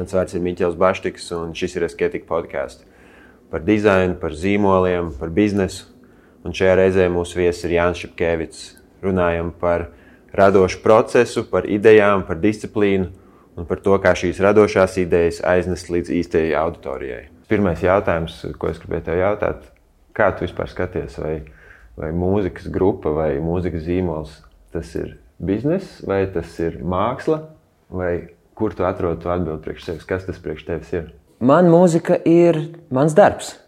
Mans vārds ir Miķels Baštiks, un šis ir Esketika podcasts par dizainu, par zīmoliem, par biznesu. Un šajā reizē mūsu viesis ir Jānis Šepkevits. Runājam par radošu procesu, par idejām, par disciplīnu un par to, kā šīs radošās idejas aiznes līdz īstajai auditorijai. Pirmais jautājums, ko es gribēju tev jautāt, kā tu vispār skaties, vai mūzikas grupa vai mūzikas zīmols, tas ir bizness, vai tas ir māksla, vai kur tu atrod to atbildi priekš sevis? Kas tas priekš tevis ir? Man mūzika ir mans darbs.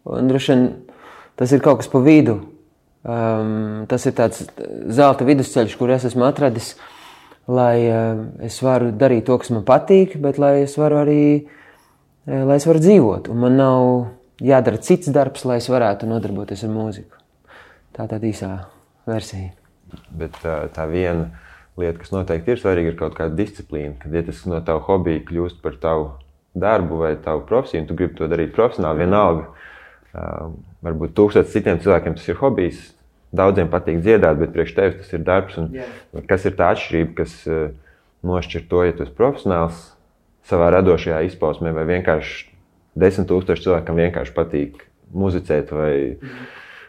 Un droši vien tas ir kaut kas pa vidu. Tas ir tāds zelta vidusceļš, kur es esmu atradis, lai es varu darīt to, kas man patīk, bet lai es varu dzīvot. Un man nav jādara cits darbs, lai es varētu nodarboties ar mūziku. Tā tāda īsā versija. Bet tā viena lieta, kas noteikti ir svarīga, ir kaut kāda disciplīna. Kad ja tas no tavu hobiju kļūst par tavu darbu vai tavu profesiju, un tu gribi to darīt profesionāli, vienalga. Varbūt 1000 citiem cilvēkiem tas ir hobijs, daudziem patīk dziedāt, bet priekš tevis tas ir darbs. Un kas ir tā atšķirība, kas nošķir to, ja tu esi profesionāls savā radošajā izpausmē, vai vienkārši 10 000 cilvēkam vienkārši patīk muzicēt vai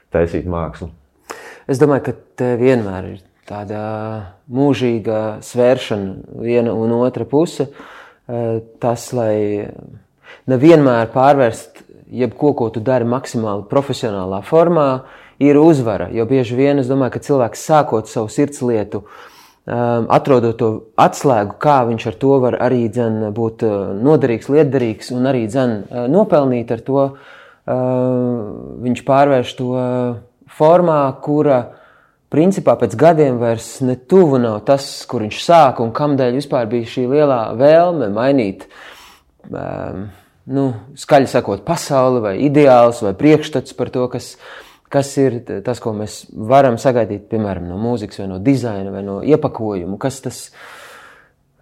taisīt mākslu? Es domāju, ka te vienmēr ir tāda mūžīga svēršana viena un otra puse. Tas, lai nevienmēr pārvērst jebko, ko tu dari maksimāli profesionālā formā, ir uzvara. Jo bieži vien es domāju, ka cilvēks sākot savu sirdslietu, atrodot to atslēgu, kā viņš ar to var arī būt noderīgs, lietderīgs un arī nopelnīt ar to, viņš pārvērš to formā, kura principā pēc gadiem vairs ne tuvu nav tas, kur viņš sāka un kamdēļ vispār bija šī lielā vēlme mainīt, skaļi sakot, pasauli vai ideāls vai priekšstats par to, kas ir tas, ko mēs varam sagaidīt, piemēram, no mūzikas vai no dizaina vai no iepakojuma,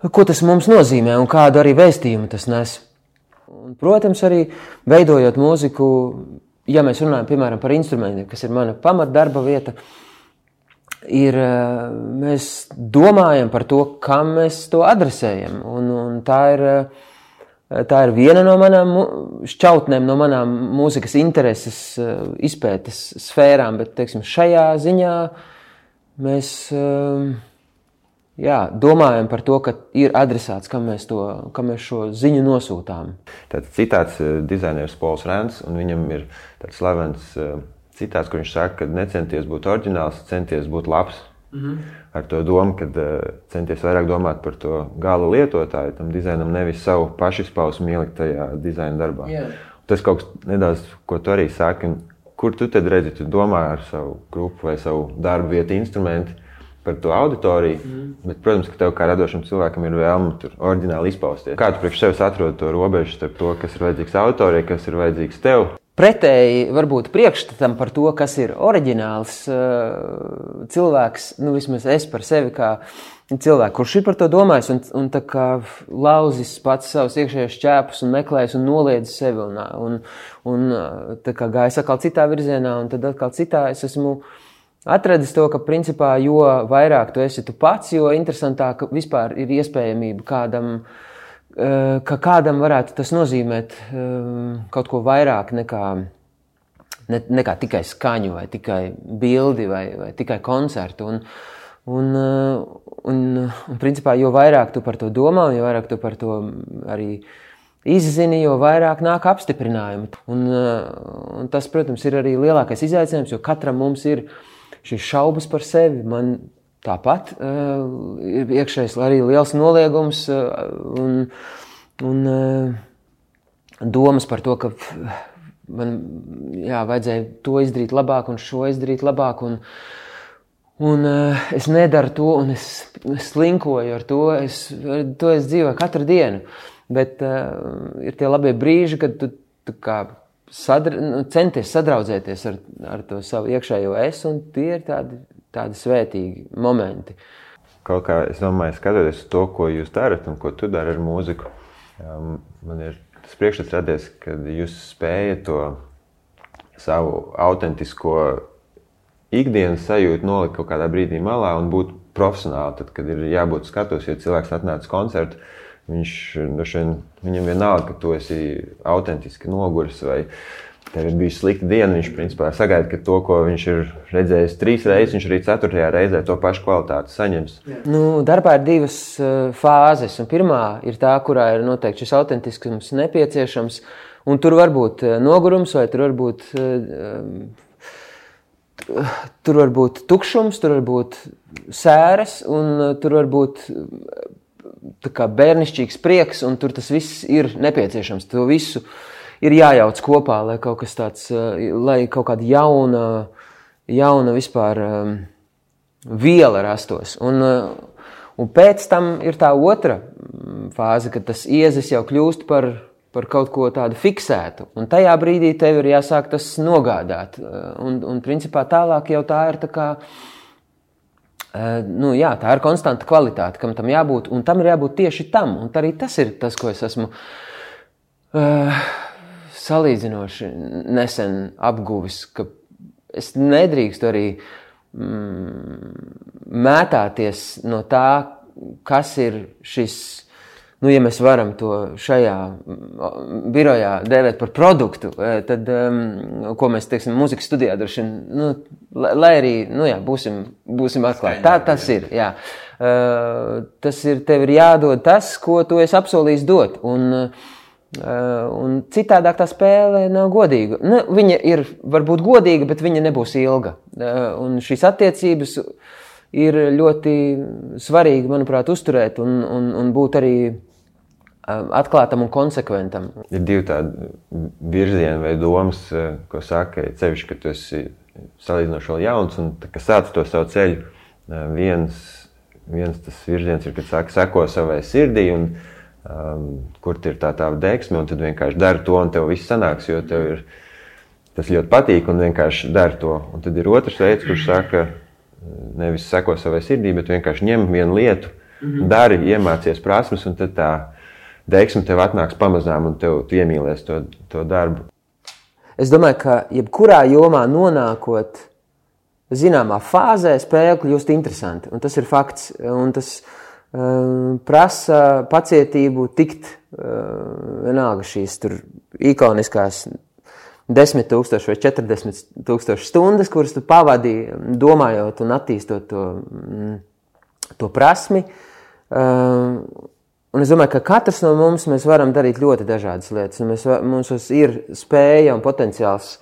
ko tas mums nozīmē un kādu arī vēstījumu tas nes. Un, protams, arī veidojot mūziku, ja mēs runājam, piemēram, par instrumentiem, kas ir mana pamatdarba vieta, mēs domājam par to, kam mēs to adresējam. Un tā ir viena no manām šķautnēm, no manām mūzikas intereses izpētes sfērām, bet, teiksim, šajā ziņā mēs domājam par to, ka ir adresāts, kam mēs šo ziņu nosūtām. Tāds citāts dizaineris Pols Rēns, un viņam ir tāds slavens citāts, kur viņš saka, ka necenties būt oriģināls, centies būt labs. Ar to domu, ka centies vairāk domāt par to gala lietotāju, tam dizainam nevis savu pašizpausmu ielikt tajā dizaina darbā. Tas kaut kas nedaudz, ko tu arī saki, kur tu tad redzi, tu domā ar savu grupu vai savu darbu vietu instrumenti par to auditoriju, bet, protams, ka tev kā radošam cilvēkam ir vēlme tur oriģināli izpausties. Kā tu priekš sevis atrod to robežu starp to, kas ir vajadzīgs auditorijai, kas ir vajadzīgs tev? Pretēji varbūt priekšstatam par to, kas ir oriģināls cilvēks, vismaz es par sevi kā cilvēku, kurš ir par to domājis un tā kā lauzis pats savus iekšējos šķēpus un meklējis un noliedzis sevi un tā kā gājis atkal citā virzienā un tad atkal citā. Es esmu atradis to, ka principā jo vairāk tu esi tu pats, jo interesantāk vispār ir iespējamība kādam varētu tas nozīmēt kaut ko vairāk nekā tikai skaņu vai tikai bildi vai tikai koncertu. Un principā, jo vairāk tu par to domā, jo vairāk tu par to arī izzini, jo vairāk nāk apstiprinājumi. Un tas, protams, ir arī lielākais izaicinājums, jo katram mums ir šīs šaubas par sevi. Man tāpat ir iekšējais arī liels noliegums un domas par to, ka man vajadzēja to izdarīt labāk un šo izdarīt labāk un es nedaru to un es slinkoju ar to, es dzīvoju katru dienu, bet ir tie labie brīži, kad tu kā centies sadraudzēties ar to savu iekšējo es, un tie ir tādi svētīgi momenti. Kaut kā, es domāju, skatoties to, ko jūs darat un ko tu dari ar mūziku, man ir tas priekšstats radies, kad jūs spējat to savu autentisko ikdienas sajūtu nolikt kaut kādā brīdī malā un būt profesionāli, tad, kad ir jābūt skatos, ja cilvēks atnāc koncertu, Viņam vienalga, ka tu esi autentiski noguris vai tev ir bijusi slikta diena, viņš principā sagaida, ka to, ko viņš ir redzējis 3 reizes, viņš arī 4. reizē to pašu kvalitāti saņems. Darbā ir 2 fāzes, un pirmā ir tā, kurā ir noteikti šis autentiskums nepieciešams, un tur var būt nogurums, vai tur var būt tukšums, tur var būt sēras, un tur var būt tā kā bērnišķīgs prieks, un tur tas viss ir nepieciešams. To visu ir jājauc kopā, lai kaut kas tāds, lai kaut kāda jauna vispār viela rastos. Un pēc tam ir tā otra fāze, kad tas iezis jau kļūst par kaut ko tādu fiksētu. Un tajā brīdī tev ir jāsāk tas nogādāt. Un principā tālāk jau tā ir tā kā, tā ir konstanta kvalitāte, kam tam jābūt, un tam ir jābūt tieši tam. Un arī tas ir tas, ko es esmu salīdzinoši nesen apguvis, ka es nedrīkstu arī mētāties no tā, kas ir šis, ja mēs varam to šajā birojā dēvēt par produktu, tad, ko mēs, teiksim, mūzikas studijā droši vien, lai arī, būsim atklāti. Tā tas ir, jā. Tas ir, tev ir jādod tas, ko tu esi apsolījis dot, un citādāk tā spēle nav godīga. Viņa ir varbūt godīga, bet viņa nebūs ilga. Un šīs attiecības ir ļoti svarīgi, manuprāt, uzturēt un būt arī atklātam un konsekventam. Ir 2 tādi virzieni vai domas, ko saka, cevišķi, ka tu esi salīdzinoši vēl jauns un ka sāc to savu ceļu. Viens tas virziens ir, kad saka, seko savai sirdī un kur ir tā deksme, un tad vienkārši dari to, un tev viss sanāks, jo tev tas ļoti patīk, un vienkārši dari to. Un tad ir otrs veids, kurš saka, nevis seko savai sirdī, bet vienkārši ņem vienu lietu, dari, iemācies prasmes, un tad tā deksme tev atnāks pamazām, un tu iemīlies to darbu. Es domāju, ka jebkurā jomā nonākot zināmā fāzē, spēle kļūst interesanti, un tas ir fakts, un tas prasa pacietību tikt vienalga šīs tur ikoniskās 10,000 vai 40,000 stundas, kuras tu pavadīji domājot un attīstot to prasmi. Un es domāju, ka katrs no mums mēs varam darīt ļoti dažādas lietas. Mums ir spēja un potenciāls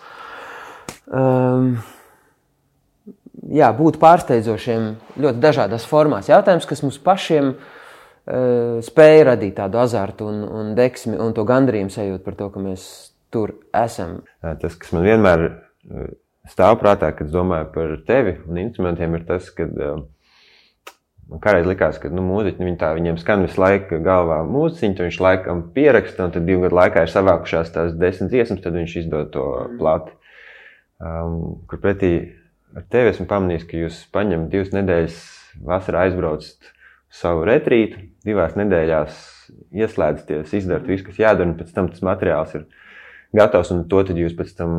būt pārsteidzošiem ļoti dažādās formās. Jautājums, kas mums pašiem spēja radīt tādu azartu un deksmi un to gandarījumu sajūtu par to, ka mēs tur esam. Tas, kas man vienmēr stāv prātā, kad domāju par tevi un instrumentiem, ir tas, ka man kādreiz likās, ka mūziķi, viņiem skan visu laiku galvā mūziķi, viņš laikam pieraksta, un tad 2 gadu laikā ir savākušās tās 10 dziesmas, tad viņš izdod to plati. Kur pretī ar tevi esmu pamanījis, ka jūs paņemat 2 nedēļas vasarā aizbraucat savu retrītu, 2 nedēļās ieslēdzaties, izdarat visu, kas jādara, un pēc tam tas materiāls ir gatavs, un to tad jūs pēc tam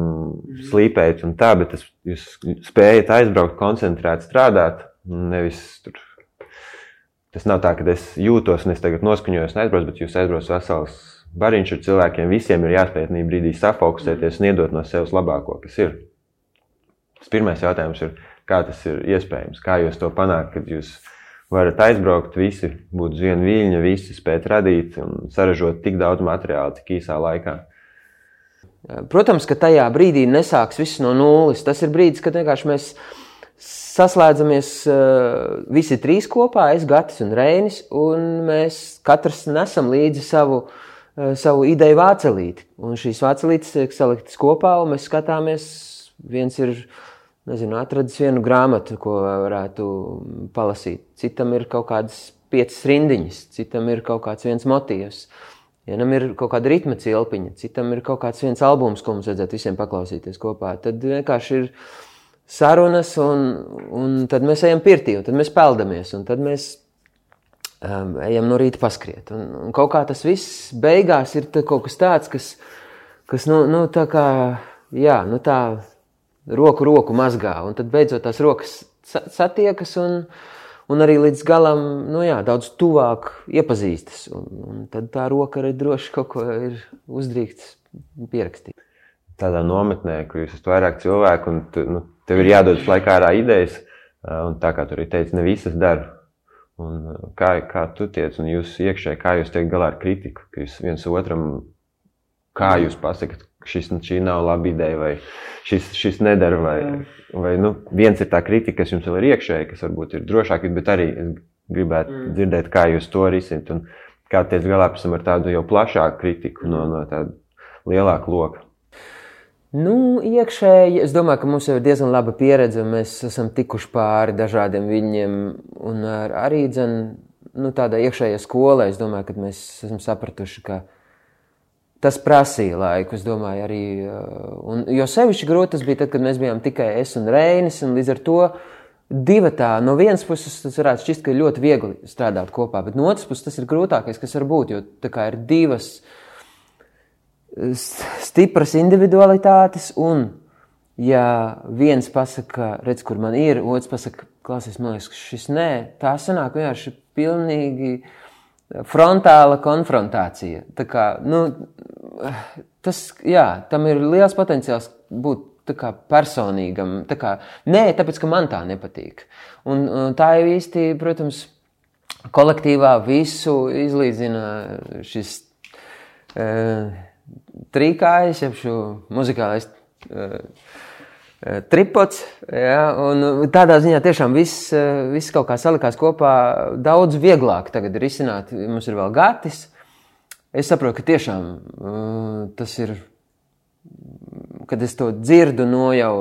slīpējat un tā, bet jūs spējat aizbraukt, koncentrēt, strādāt, nevis tur. Tas nav tā, ka es jūtos un es tagad noskaņojos un aizbraucu, bet jūs aizbrauc vesels bariņš ar cilvēkiem, visiem ir jāspēj tajā brīdī safokusēties un iedot no sevis labāko, kas ir. Tas pirmais jautājums ir, kā tas ir iespējams, kā jūs to panākt, kad jūs varat aizbraukt, visi būt uz vienu viļņa, visi spēt radīt un saražot tik daudz materiālu, tik īsā laikā. Protams, ka tajā brīdī nesāks viss no nulles. Tas ir brīdis, kad vienkārši mēs saslēdzamies visi 3 kopā, es, Gatis un Reinis, un mēs katrs nesam līdzi savu ideju vācelīti. Un šīs vācelītes tiek saliktas kopā, un mēs skatāmies, viens ir, atradis vienu grāmatu, ko varētu palasīt. Citam ir kaut kādas 5 rindiņas, citam ir kaut kāds viens motīvs. Vienam ir kaut kāda ritma cilpiņa, citam ir kaut kāds viens albums, ko mums vajadzētu visiem paklausīties kopā. Tad vienkārši ir sarunas, un tad mēs ejam pirtī, un tad mēs peldamies, un tad mēs ejam no rīta paskriet. Un kaut kā tas viss beigās ir kaut kas tāds, kas tā kā, roku mazgā, un tad beidzot tās rokas satiekas, un arī līdz galam, daudz tuvāk iepazīstas. Un tad tā roka arī droši kaut ko ir uzdrīkts pierakstīt. Tādā nometnē, kur jūs esat vairāk cilvēku, un tev ir jādodas laikā ārā idejas, un tā kā tu arī teici, ne visas dara. Un kā tu tiec, un jūs iekšēji, kā jūs tiek galā ar kritiku, ka jūs viens otram, kā jūs pasakat, šī nav laba ideja, vai šis nedara, vai viens ir tā kritika, kas jums vēl ir iekšēji, kas varbūt ir drošāk, bet arī es gribētu dzirdēt, kā jūs to risināt, un kā tiec galā pēc tam ar tādu jau plašāku kritiku no tāda lielāka loka. Iekšēji, es domāju, ka mums jau ir diezgan laba pieredze, un mēs esam tikuši pāri dažādiem viļņiem, un arī tādā iekšējā skolā, es domāju, ka mēs esam sapratuši, ka tas prasīja laiku, es domāju, arī, jo sevišķi grūti tas bija tad, kad mēs bijām tikai es un Reinis, un līdz ar to divatā, no vienas puses tas varētu šķist, ka ir ļoti viegli strādāt kopā, bet no otras puses tas ir grūtākais, kas var būt, jo tā kā ir divas stipras individualitātes, un ja viens pasaka, redz, kur man ir, otrs pasaka, klausies, man liekas, ka šis nē, tā sanāk vienkārši pilnīgi frontāla konfrontācija. Tā kā, tam ir liels potenciāls būt tā kā personīgam, tā kā, nē, tāpēc, ka man tā nepatīk. Un tā jau īsti, protams, kolektīvā visu izlīdzina šis trīkājs, jeb šo muzikālais tripods, un tādā ziņā tiešām viss kaut kā salikās kopā daudz vieglāk tagad ir izsināt. Mums ir vēl gatis. Es saprotu, ka tiešām tas ir, kad es to dzirdu no jau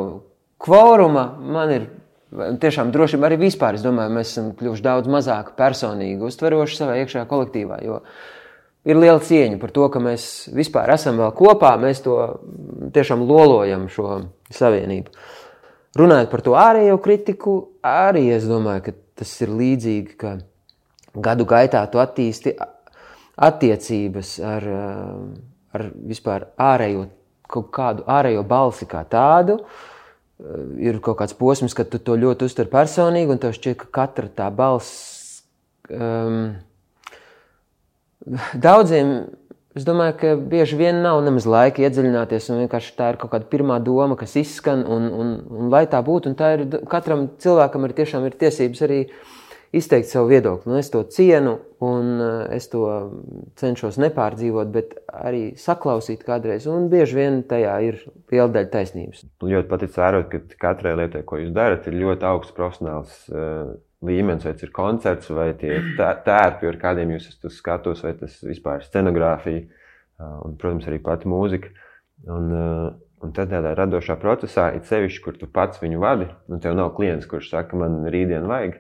kvoruma, man ir tiešām drošība arī vispār. Es domāju, mēs esam kļuvuši daudz mazāk personīgi uztveroši savā iekšējā kolektīvā, jo ir liela cieņa par to, ka mēs vispār esam vēl kopā, mēs to tiešām lolojam šo savienību. Runājot par to ārējo kritiku, arī es domāju, ka tas ir līdzīgi, ka gadu gaitā tu attīsti attiecības ar vispār kaut kādu ārējo balsi kā tādu. Ir kaut kāds posms, kad tu to ļoti uztver personīgi, un tev šķiet, ka katra tā balss daudziem, es domāju, ka bieži vien nav nemaz laika iedziļināties, un vienkārši tā ir kaut kāda pirmā doma, kas izskan, un lai tā būtu, un tā ir, katram cilvēkam tiešām ir tiesības arī izteikt savu viedokli. Es to cienu, un es to cenšos nepārdzīvot, bet arī saklausīt kādreiz, un bieži vien tajā ir liela daļa taisnības. Ļoti patic vērot, ka katrai lietai, ko jūs darat, ir ļoti augsts profesionāls līmenis, vai tas ir koncerts, vai tie tērpi, ar kādiem jūs esat skatos, vai tas vispār scenogrāfija, un, protams, arī pati mūzika. Un tad tādā radošā procesā, it sevišķi, kur tu pats viņu vadi, un tev nav klients, kurš saka, man rītdien vajag.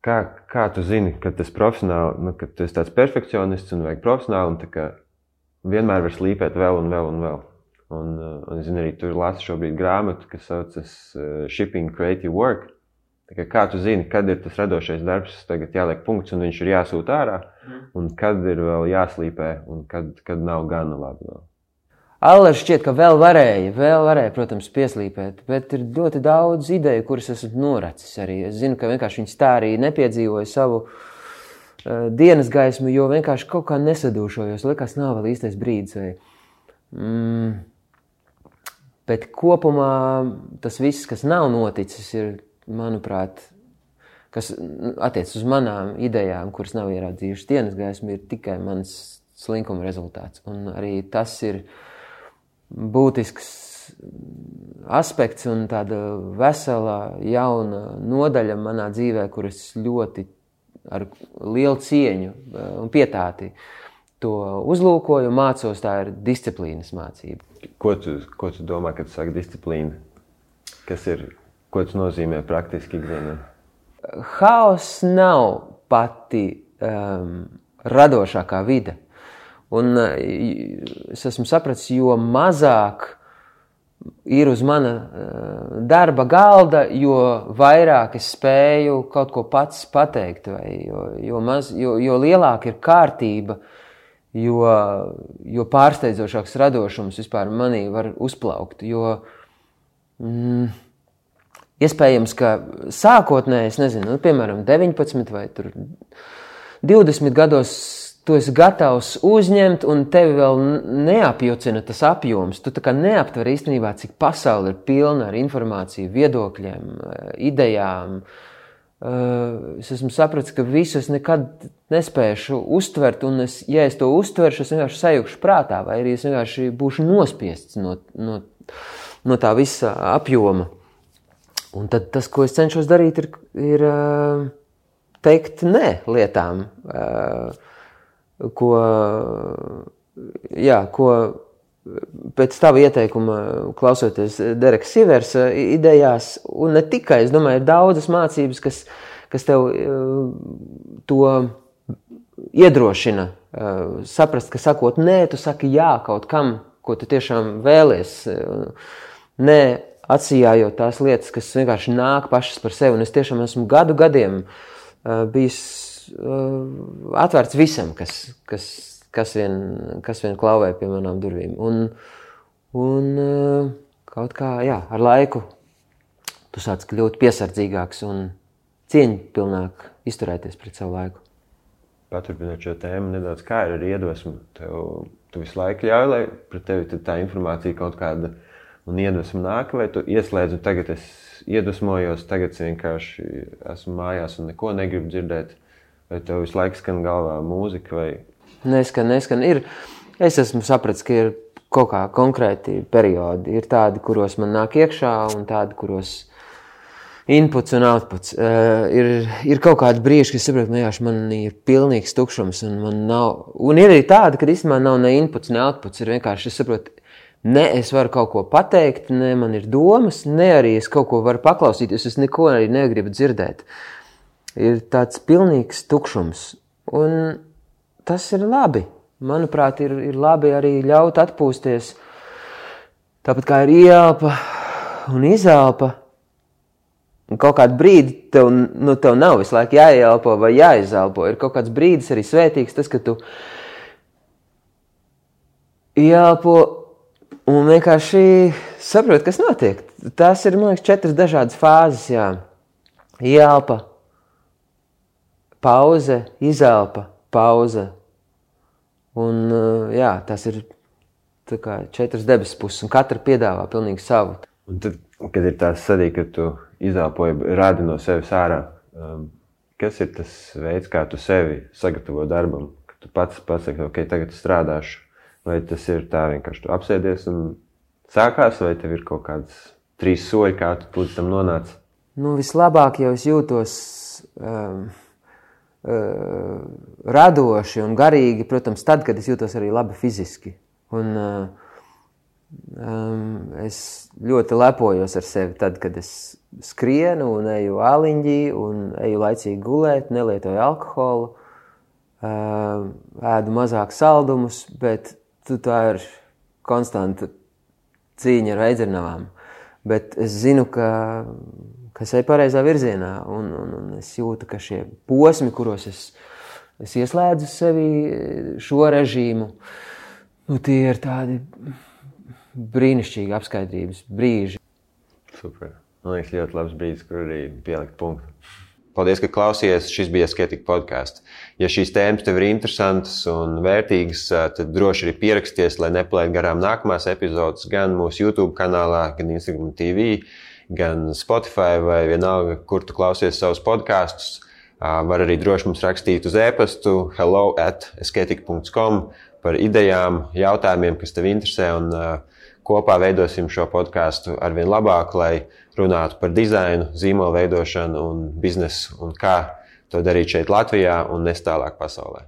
Kā tu zini, ka tas profesionāli, ka tu esi tāds perfekcionists un vajag profesionāli, un tā kā vienmēr var slīpēt vēl un vēl un vēl. Un es zinu, arī tu lasi šobrīd grāmatu, kas saucas Shipping Creative Work. Kā tu zini, kad ir tas radošais darbs, tagad jāliek punkts un viņš ir jāsūt ārā, un kad ir vēl jāslīpē, un kad nav gana labi vēl? Aller šķiet, ka vēl varēja, protams, pieslīpēt, bet ir ļoti daudz ideju, kuras esmu noracis arī. Es zinu, ka vienkārši viņas tā arī nepiedzīvoja savu dienas gaismu, jo vienkārši kaut kā nesadūšojos, likās nav vēl īstais brīdis. Bet kopumā tas viss, kas nav noticis, ir, manuprāt, kas attiec uz manām idejām, kuras nav ierādzījušas dienas gaismu, ir tikai mans slinkuma rezultāts. Un arī tas ir būtisks aspekts un tāda vesela jauna nodaļa manā dzīvē, kuras ļoti ar lielu cieņu un pietāti to uzlūkoju, mācos, tā ir disciplīnas mācība. Ko tu domā, kad tu saki disciplīna? Ko tas nozīmē praktiski ikdienā? Haoss nav pati radošākā vide. Un es esmu sapratis, jo mazāk ir uz mana darba galda, jo vairāk es spēju kaut ko pats pateikt, vai jo lielāka ir kārtība, jo pārsteidzošāks radošums vispār manī var uzplaukt, jo iespējams, ka sākotnēji, es nezinu, piemēram, 19 vai 20 gados tu esi gatavs uzņemt, un tevi vēl neapjucina tas apjoms. Tu tā kā neaptver īstenībā, cik pasaule ir pilna ar informāciju, viedokļiem, idejām. Es esmu sapratis, ka visu es nekad nespēšu uztvert, un ja es to uztveršu, es vienkārši sajūkšu prātā, vai arī es vienkārši būšu nospiests no tā visa apjoma. Un tad tas, ko es cenšos darīt, ir teikt nē lietām, ko pēc tava ieteikuma, klausoties Dereka Siversa idejās, un ne tikai, es domāju, ir daudzas mācības, kas tev to iedrošina saprast, ka sakot nē, tu saki jā kaut kam, ko tu tiešām vēlies, nē, atsijājot tās lietas, kas vienkārši nāk pašas par sevi, un es tiešām esmu gadiem bijis atvērts visam, kas vien klauvē pie manām durvīm. Un kaut kā, ar laiku tu sāc kļūt piesardzīgāks un cieņpilnāk izturēties pret savu laiku. Paturpinot šo tēmu nedaudz, kā ir ar iedvesmu? Tu visu laiku ļauj, lai pret tevi tā informācija kaut kāda un iedvesmu nāk, vai tu ieslēdz un tagad es iedvesmojos, tagad es vienkārši esmu mājās un neko negribu dzirdēt, vai tev visu laiku skan galvā mūzika, vai... Neskan. Es esmu sapratis, ka ir kaut kā konkrēti periodi. Ir tādi, kuros man nāk iekšā, un tādi, kuros inputs un outputs. Ir kaut kādi brīži, kad saprotu, man ir pilnīgs tukšums, un man nav... Un ir arī tādi, kad īstenībā nav ne inputs, ne outputs. Ir vienkārši, es saprotu, ne es varu kaut ko pateikt, ne man ir domas, ne arī es kaut ko varu paklausīties, es neko arī negribu dzirdēt. Ir tāds pilnīgs tukšums. Un tas ir labi. Manuprāt, ir labi arī ļaut atpūsties. Tāpat kā ir ieelpa un izelpa. Un kaut kādu brīdi tev nav visu laiku jāieelpo vai jāizelpo. Ir kaut kāds brīdis arī svētīgs, tas, ka tu ieelpo un vienkārši saproti, kas notiek. Tās ir, man liekas, 4 dažādas fāzes, Ieelpa, pauze, izelpa, pauze. Un, tas ir tā kā 4 debesu puses, un katra piedāvā pilnīgi savu. Un tad, kad ir tās sadī, ka tu izelpoji, rādi no sevis ārā, kas ir tas veids, kā tu sevi sagatavo darbam? Ka tu pats pasaki, ok, tagad strādāšu. Vai tas ir tā vienkārši tu apsēdies un sākās, vai tev ir kaut kāds 3 soļi, kā tu līdz tam nonāc? Vislabāk jau es jūtos radoši un garīgi, protams, tad, kad es jūtos arī labi fiziski. Un es ļoti lepojos ar sevi tad, kad es skrienu un eju āliņģī un eju laicīgi gulēt, nelietoju alkoholu, ēdu mazāk saldumus, bet tā ir konstanta cīņa ar veidzernavām. Bet es zinu, ka es eju pareizā virzienā, un es jūtu, ka šie posmi, kuros es ieslēdzu sevi šo režīmu, tie ir tādi brīnišķīgi apskaidrības brīži. Super. Man liekas, ļoti labs brīdis, kur arī pielikt punktu. Paldies, ka klausījies. Šis bija Asketika podcasts. Ja šīs tēmas tev ir interesantas un vērtīgas, tad droši arī pieraksties, lai nepalaid garām nākamās epizodes gan mūsu YouTube kanālā, gan Instagram TV, gan Spotify vai vienalga, kur tu klausies savus podcasts. Var arī droši mums rakstīt uz e-pastu hello@asketika.com par idejām, jautājumiem, kas tev interesē, un kopā veidosim šo podcastu arvien labāk, lai runātu par dizainu, zīmola veidošanu un biznesu un kā to darīt šeit Latvijā un nes tālāk pasaulē.